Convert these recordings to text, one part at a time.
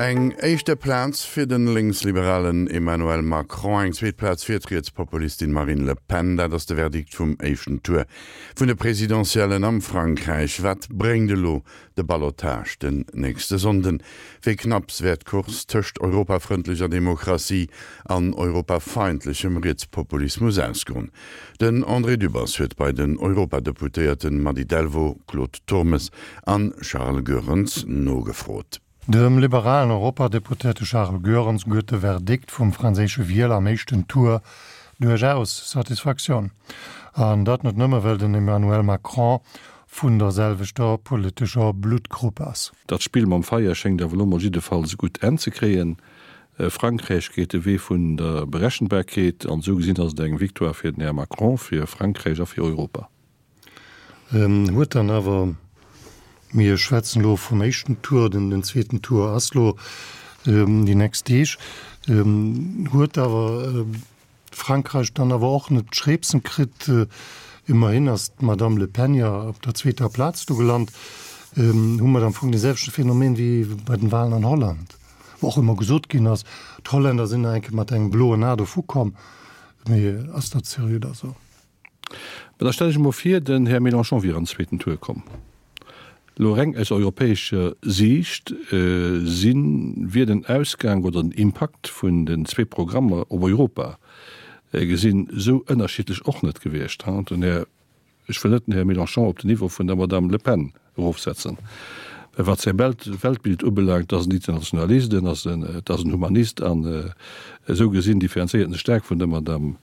Eng éischte Plaz fir de lénksliberalen Emmanuel Macron, eng zweet Plaz fir d'Rietspopulistin Marine Le Pen, dat ass de Verdikt vum éischten Tour vun de Presidentiellen am Frankräich. Wat bréngt elo de Ballottage den nächste Sonnden? Wéi knapps wäert d'Course tëscht europafrëndlecher Demokratie an europafeindlechem Rietspopulismus ausgoen? Den André Dübbers huet bei den Europadeputéierten Mady Delvaux, Claude Turmes an Charles Goerens nogefrot. Dem liberalen Europadeputéierte Charles Goerens gëtt de Verdikt vum franséische Wieler am éischten Tour duerchaus Satisfaktioun. An dat net nëmme well den Emmanuel Macron vun der selwechter politescher Bluttgrupp ass. Dat Spill mam Feier schéngt awer elo mol jiddefalls e gutt Enn ze kréien. Frankräich geet de Wee vun der Berechenbarkeet an esou gesinn ass et eng Victoire fir den Här Macron, fir Frankräich a fir Europa. Huet dann awer, mir schwätzen elo vum éischten Tour, den zweeten Tour ass elo déi nächst Deeg, huet awer Frankräich dann awer och net d'Schreepsen kritt. Ëmmerhin ass d'Madame Le Pen jo op der zweeter Plaz do gelant. Hu mer am Fong dee selwechte Phänomen wéi bei den Walen an Holland, wou och ëmmer gesot ginn ass, d'Holländer sinn nach eng Kéier mat engem bloen A dovu komm. Mee ass dat seriö da sou? Mä da stell ech emol vir, den Här Mélenchon wier an den zweeten Tour komm. Elo reng aus europäescher Siicht si wier den Ausgang oder den Impakt vun den zwee Programmer op Europa gesinn esou ënnerschiddlech och net gewiescht. Den Här, ech wëll net den Här Mélenchon op den Niveau vun der Madame Le Pen erofsetzen, mä wat säi Weltbild ubelaangt, ass en Internationalist, en ass en, et ass en Humanist an esou gesinn differenzéiert en sech staark vun der Madame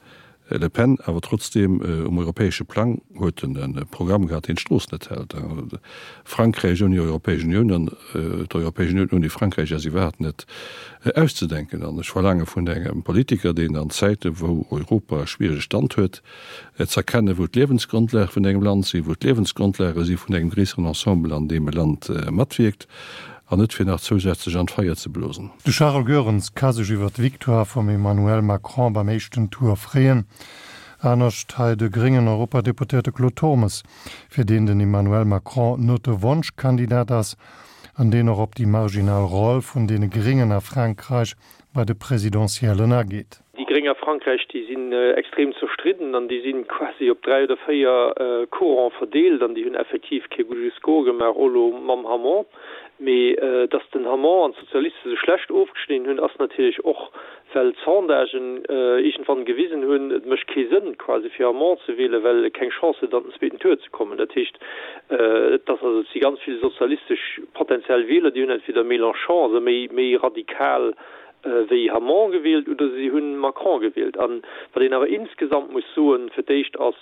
Le Pen, awer trotzdeem, um europäesche Plang huet en e Programm gehat, deen d'Strooss net hält. Frankräich ouni Europäesch Unioun an d'Europäesch Unioun ouni Frankräich ass iwwerhaapt net auszedenken. An ech verlaange vun engem Politiker, deen an Zäite wou Europa e schwierege Stand huet, z'erkennen, wou d'Liewensgrondlage vun engem Land sinn, wou d'Liewensgrondlage si vun engem gréisseren Ensemble, an deem e Land matwierkt, an net fir nach zousätzlech an d'Feier ze blosen. De Charles Goerens ka sech iwwer d'Victoire vum Emmanuel Macron beim éischten Tour freeën. Anescht hei de gréngen Europadeputéierte Claude Turmes, fir deen den Emmanuel Macron net de Wonschkandidat ass an deen och op déi marginal Roll vun deene Gréngen a Frankräich bei de Presidentiellen ageet. Déi Gréng a Frankräich, déi sinn extrem zerstridden an déi si quasi op 3 oder 4 Courante verdeelt an déi hunn effektiv kee gudde Score gemaach, och elo mam Hamon. Mee datt den Hamon an d'Sozialiste sou schlecht ofgeschnidden hunn, ass natierlech och, well d'Sondagen iergendwann gewisen hunn, et mécht kee Sënn quasi fir Hamon ze wielen, well e keng Chance huet an den zweeten Tour ze kommen. Dat heescht, et ass also, et si ganz vill sozialistesch potentiell Wieler, déi hunn entweder Mélenchon, also méi méi radikal wéi Hamon gewielt, oder si hunn Macron gewielt. An wat een awer insgesamt muss soen, fir d'éischt ass,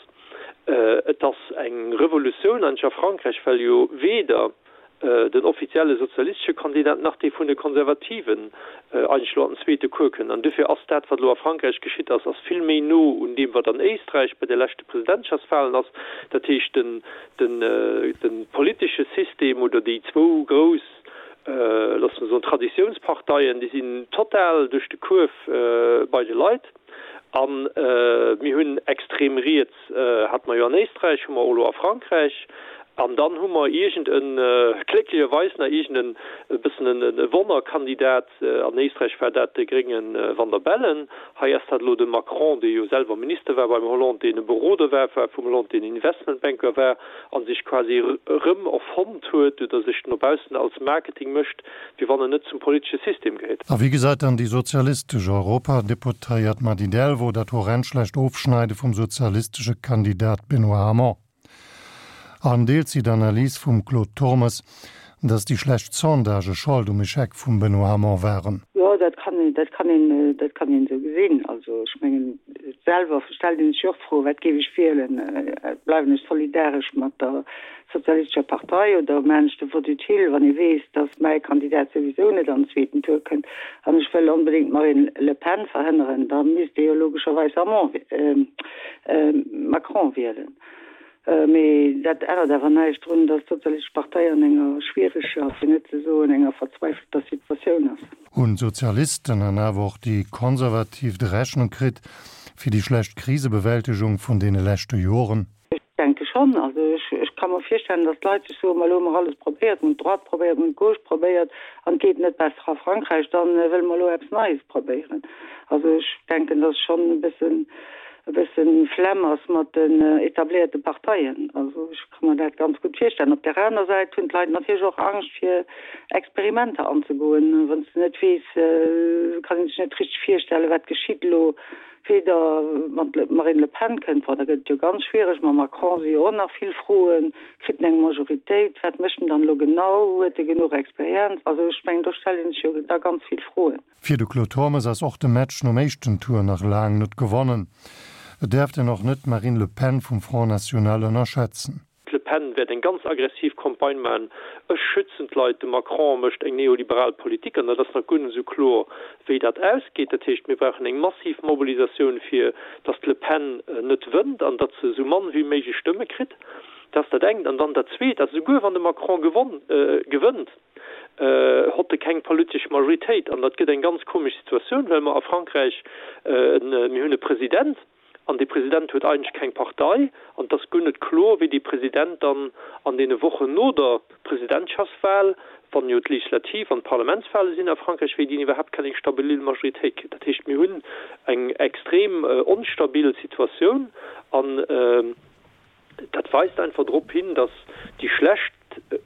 et ass eng Revolutioun eigentlech a Frankräich, well jo weder den offizielle sozialistesche Kandidat nach dee vun de Konservativen eigentlech elo an den zweete Cours kënnt. An dofir ass dat, wat elo a Frankräich geschitt ass, ass vill méi no un deem, wat an Éisträich bei de leschte Presidentschaftswahlen ass. Dat heescht, den, den, de politesche System oder déi zwou grouss, loosse mer soen, Traditiounsparteien, déi sinn total duerch de Kuerf bei de Leit. A mir hunn extrem riets, hate mer jo an Éisträich, hu mer och elo a Frankräich. An dann hu mer iergend e, glécklecherweis nach iergend en e bëssen e Wonnerkandidat, an Éisträich war dat de grénge Van der Bellen, hei ass dat elo de Macron, dee jo selwer Minister war beim Hollande, deen e Beroder war vum Hollande, deen Investmentbanker war a sech quasi erëm erfonnt huet oder sech no baussen als Marketing mécht, wéi wann en net zum politesche System gehéiert. A wéi gesäit dann déi sozialistesch Europadeputéiert Mady Delvaux dat horrend schlecht Ofschneide vum sozialistesche Kandidat Benoît Hamon? An deelt si d'Analys vum Claude Turmes, datt déi schlecht Sondagë Schold um Echec vum Benoît Hamon waren? Jo, dat kann een, dat kann een, dat kann een esou gesinn. Also ech mengen, selwer stellt een sech jo och d'Fro, wat géif ech wielen? Bleiwen ech solidaresch mat der Sozialistescher Partei oder maan ech de Vote utile, wann ee weess, datt mäi Kandidat souwisou net an den zweeten Tour kënnt an ech wëll onbedéngt d'Marine Le Pen verhënneren, da misst ee jo logescherweis Hamon, Macron wielen. Mee dat ännert awer näischt drun, datt d'Sozialistesch Partei an enger schwiereger, fir net ze soen enger verzweifelter Situatioun ass. Hunn d'Sozialisten an awer och déi Konservativ d'Rechnung kritt fir déi schlecht Krisebewältegung vun deene leschte Joren? Ech denke schonn. schonn. Also ech, ech ka mer virstellen, datt d'Leit sech soen, ma elo hu mer alles probéiert, mer hunn d'Droite probéiert, mer hunn d'Gauche probéiert an et geet net besser a Frankräich, da wëlle mer elo eppes Neies probéieren. Also ech denken, datt schonn e bëssen, e bëssen Flemm ass mat den etabléierte Parteien. Also ech ka mer dat ganz gutt virstellen. Op där aner Säit hunn d'Leit natierlech och Angscht fir Experimenter anzegoen. Wann s de net weess, kann ee sech net richteg virstellen, wat geschitt elo. Weder wann d'Marine Le Pen kënnt, bon da gëtt et jo ganz schwiereg, mam Macron si jo och nach vill Froen, kritt en eng Majoritéit, wat mécht en dann elo genau, huet e genuch Experienz? Also ech mengen do stellt ee sech jo da ganz vill Froen. Fir de Claude Turmes ass och de Match nom éischten Tour nach laang net gewonnen. Et däerft een och net d'Marine Le Pen vum Front National ënnerschätzen. D'Le Pen wäert eng ganz aggressiv Campagne maachen, Ech schützen d'Leit, de Macron mécht eng neoliberal Politik an dat ass nach guer net esou kloer, wéi dat ausgeet. Dat heescht, mir brauchen eng massiv Mobilisatioun, fir datt d'Le Pen net wënnt an datt se esou mann wéi méiglech Stëmme kritt. Dat ass dat engt. An dann dat Zweet ass, esouguer wann de Macron gewonn, gewënnt, hott e keng politesch Majoritéit. An dat gëtt eng ganz komesch Situatioun, well mer a Frankräich, mir hunn e President, An dee President huet eigentlech keng Partei. An et ass guer net kloer, wéi dee President dann an deene Wochen no der Presidentschaftswahl, wann jo d'Legislativ an d'Parlamentswahle sinn a Frankräich, wéi deen iwwerhaapt kann eng stabil Majoritéit kritt. Dat heescht, mir hunn eng extrem onstabil Situatioun. An Dat weist einfach drop hin, datt déi schlecht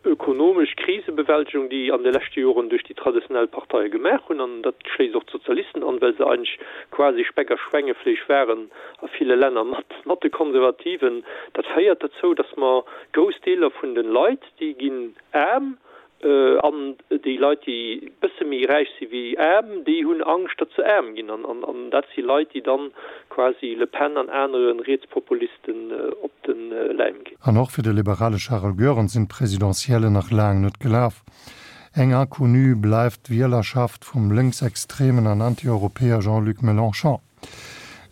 ökonomesch Krisebewältegung, déi an de leschte Joren duerch déi traditionell Parteie gemaach hunn, an dat schléisst och d'Sozialisten an, well se eigentlech quasi Speck a Schwengefleesch waren a ville Länner mat de Konservativen, dat féiert dozou, datt mer grouss Deeler vun de Leit, déi ginn aarm, An déi Leit, déi bësse méi räich si wéi aarm, déi hunn Angscht, datt se aarm ginn. An dat si Leit, déi dann quasi Le Pen an anere Rietspopulisten op de Läim ginn. An och fir de liberale Charel Goerens sinn d'Presidentiellen nach laang net gelaf. Eng Inconnue bleift d'Wielerschaft vum lénksextremen an Anti-Europäer Jean-Luc Mélenchon.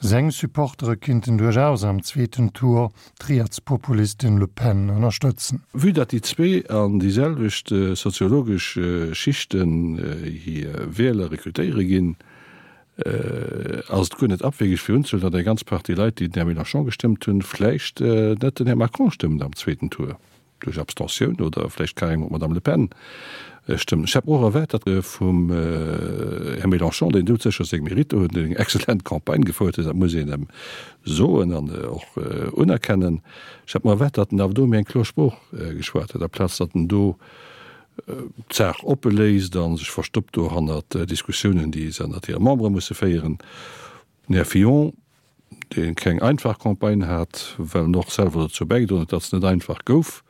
Seng Supportere kinnten duerchaus am zweeten Tour d'Rietspopulistin Le Pen ënnerstëtzen. Vue datt déi zwee an déi selwecht soziologesch Schichten hir Wieler rekrutéiere ginn, ass et guer net abwegeg fir unzehuelen, datt eng ganz Partie Leit, déi den Här Mélenchon gestëmmt hunn, vläicht net den Här Macron stëmmen am zweeten Tour. duerch Abstentioun oder vläicht carrément d'Madame Le Pen stëmmen. Ech hätt mer och erwaart, datt vum Här Mélenchon, deen doudsécher seng Mérite huet, deen eng excellent Campagne gefouert huet, dat muss een em soen an och unerkennen, ech hätt mer erwaart, datt en awer do méi eng kloer Sprooch geschwat huet, aplaz datt en do d'Saach oppe léisst a sech verstoppt do hannert Diskussiounen, déi se ënnert hire Membere musse féieren. Den Här Fillon, dee keng einfach Campagne hat, well en och selwer dozou bäigedroen huet, datt se net einfach gouf,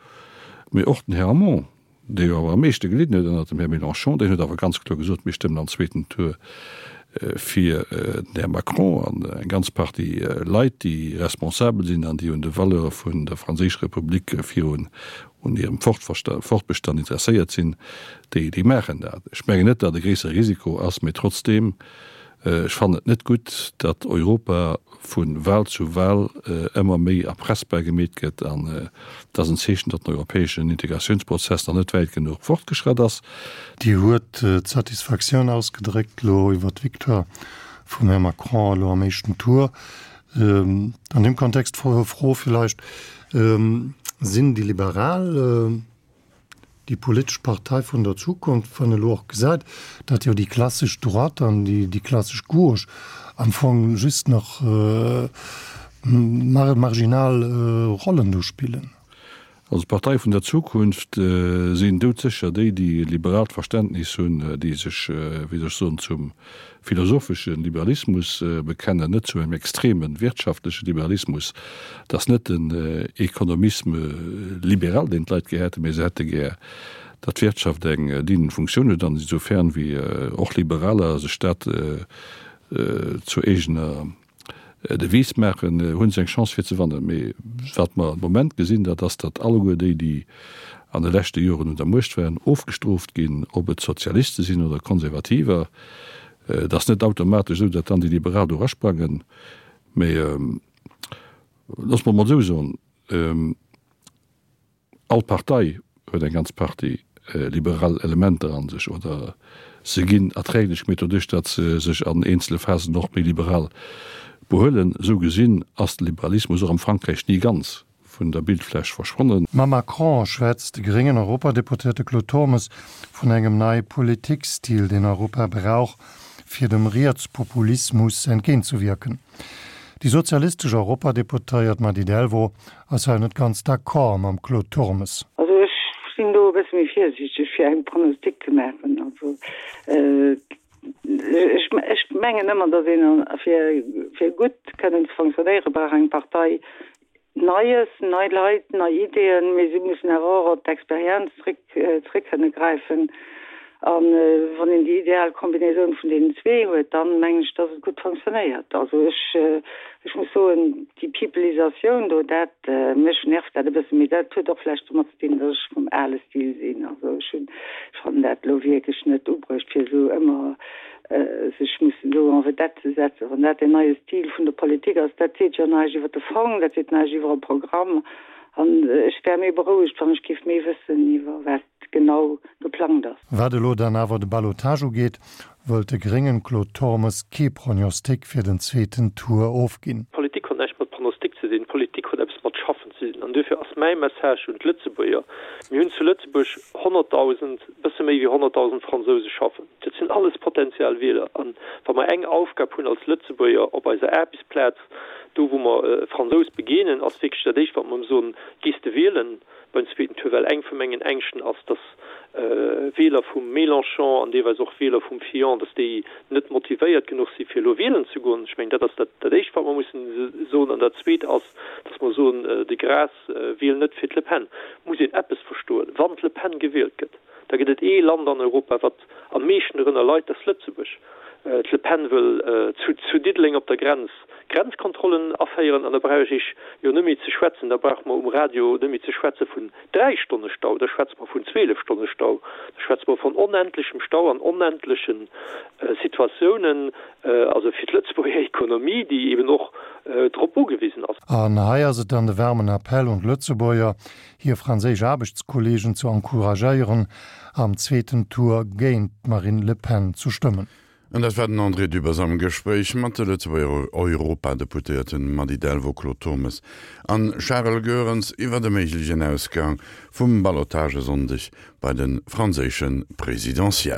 mee och den Här Hamon, dee jo awer am meeschte gelidden huet ënnert dem Här Mélenchon, deen huet awer ganz kloer gesot, mir stëmmen am zweeten Tour fir den Här Macron. An eng ganz Partie Leit, déi responsabel sinn an déi un de Valeure vun der franséischer Republik virun un hirem Fortbestand interesséiert sinn, déi maachen dat. Ech mengen net, datt e gréissere Risiko ass, mee trotzdeem, Ech fannen et net gutt, datt Europa vu Wahl zu Wahl ëmmer méi erpressbar gemeet gëtt an et ass en Zeechen, datt den europäeschen Integratiounsprozess nach net wäit genuch fortgeschratt ass. Dir huet d'Satisfaktioun ausgedréckt elo iwwert d'Victoire vum Här Macron elo am éischten Tour. An deem Kontext d'Fro villäicht, Sinn déi Liberal déi politesch Partei vun der Zukunft, wann elo och gesäit, datt jo déi klassesch Droite an déi klassesch Gauche am Fong just nach marginal Rollen do spillen? Also d'Partei vun der Zukunft sinn doudsécher déi, déi e liberaalt Verständnis hunn, déi sech, wéi soll ech soen, zum philosophesche Liberalismus bekennen, net zu engem extreme wirtschaftleche Liberalismus. Et ass net den Economisme libéral, deen d'Leit gär hätten, mä se hätte gär, datt d'Wirtschaft eng dienend Funktioun huet an insofern wéi och Liberaler sech dat zur eegener Devise maachen, hu se eng Chance fir ze wannen. Mee wat mer de Moment gesinn, dat ass, datt alleguer déi, déi an de leschte Joren un der Muecht waren, ofgestrooft ginn, ob et Sozialiste sinn oder Konservativer. Et ass net automatesch esou, datt dann déi Liberal do erasprangen. Mee loosse mer emol esou soen, All Partei huet eng ganz Partie liberal Elementer a sech, oder se ginn erträglech gemeet doduerch, datt se sech an eenzele Phasen och méi liberal behuelen. Esou gesinn ass de Liberalismus och am Frankräich ni ganz. vun der Bildfläch verschwonnen. Mam Macron schwätzt de gréngen Europadeputéierte Claude Turmes vun engem neie Politikstil, deen Europa brauch, fir dem Rietspopulismus entgéintzewierken. Déi sozialistesch Europadeputéiert Mady Delvaux ass hei net ganz d'accord mam Claude Turmes. Also ech sinn do e bësse méi virsiichteg fir eng Pronostic ze maachen. Also ech mengen ëmmer, datt een fir gutt kënnen ze fonctionnéiere brauch eng Partei Neies, nei Leit, nei Ideeën, mee si mussen awer och op d'Experienz zréck zréck kënne gräifen. A wann een déi ideal Kombinaisoun vun deenen zwee huet, dann mengen ech, dass et gutt fonctionnéiert. Also ech ech muss soen, déi Peopleisatioun do, dat, mech nervt dat e bëssen, mee dat huet och vläicht domat ze dinn, dass ech vum ale Stil sinn. Also ech hunn, ech fannen dat elo wierklech net ubruecht, fir esou ëmmer sech mussen do en vedette ze setzen, wann dat deen neie Stil vun der Politik ass, dat seet jo näischt iwwer de Fong, dat seet näischt iwwer e Programm. An ech wär méi berouegt, wann ech géif méi wëssen iwwer wat genau geplangt ass. Wat elo dann awer de Ballottage ugeet, wëllt de gréngen Claude Turmes kee Prognostic fir den zweeten Tour ofginn. Politik huet näischt mat Pronostic ze dinn, Politik huet eppes mat Schaffen ze dinn. An duerfir ass mäi Message un d'Lëtzebuerger, Mir hunn zu Lëtzebuerg 100.000, bësse méi wéi 100.000 Fransouse schaffen. Dat sinn alles potentiell Wieler. An wa mer eng Aufgab hunn als Lëtzebuerger op eiser Aarbechtsplaz, do wou mer e Fransous begéinen, ass wierklech dat Éischt wat mer em soen, Gees de wielen beim zweeten Tour? Well eng vu mengen Ängschten ass, datt Wieler vum Mélenchon an deelweis och Wieler vum Fillon, datt déi net motivéiert genuch si fir elo wielen ze goen. Ech mengen, dat ass dat Éischt wat mer mussen soen. An dat Zweet ass, datt mer soen, de Gras wiel net fir d'Le Pen. Muss een eppes verstoen, Wann d'Le Pen gewielt gëtt, da gëtt et ee Land an Europa, wat am meeschten dorënner leit, dat ass Lëtzebuerg. D'Le Pen wëll zu Diddeleng op der Grenz Grenzkontrollen aféieren an da brauch ech Iech jo net méi ze schwätzen, da brauche mer um Radio net méi ze schwätze vun 3 Stonne Stau, da schwätze mer vun 12 Stonne Stau, da schwätze mer vun onendlechem Stau an onendleche Situatiounen, also fir d'Lëtzebuerger Ekonomie, déi eben och drop ugewisen ass. An hei ass et dann de waarmen Appell un d'Lëtzebuerger, hir franséisch Aarbechtskolleegen ze encouragéieren, am zweeten Tour géint d'Marine Le Pen zu stëmmen. An dat war den André Dübbers am Gespréich mat de Lëtzebuerger Europadeputéierten Mady Delvaux, Claude Turmes an Charel Goerens iwwer e méiglechen Ausgang vum Ballottage e Sonndeg bei de franséische Presidentiellen.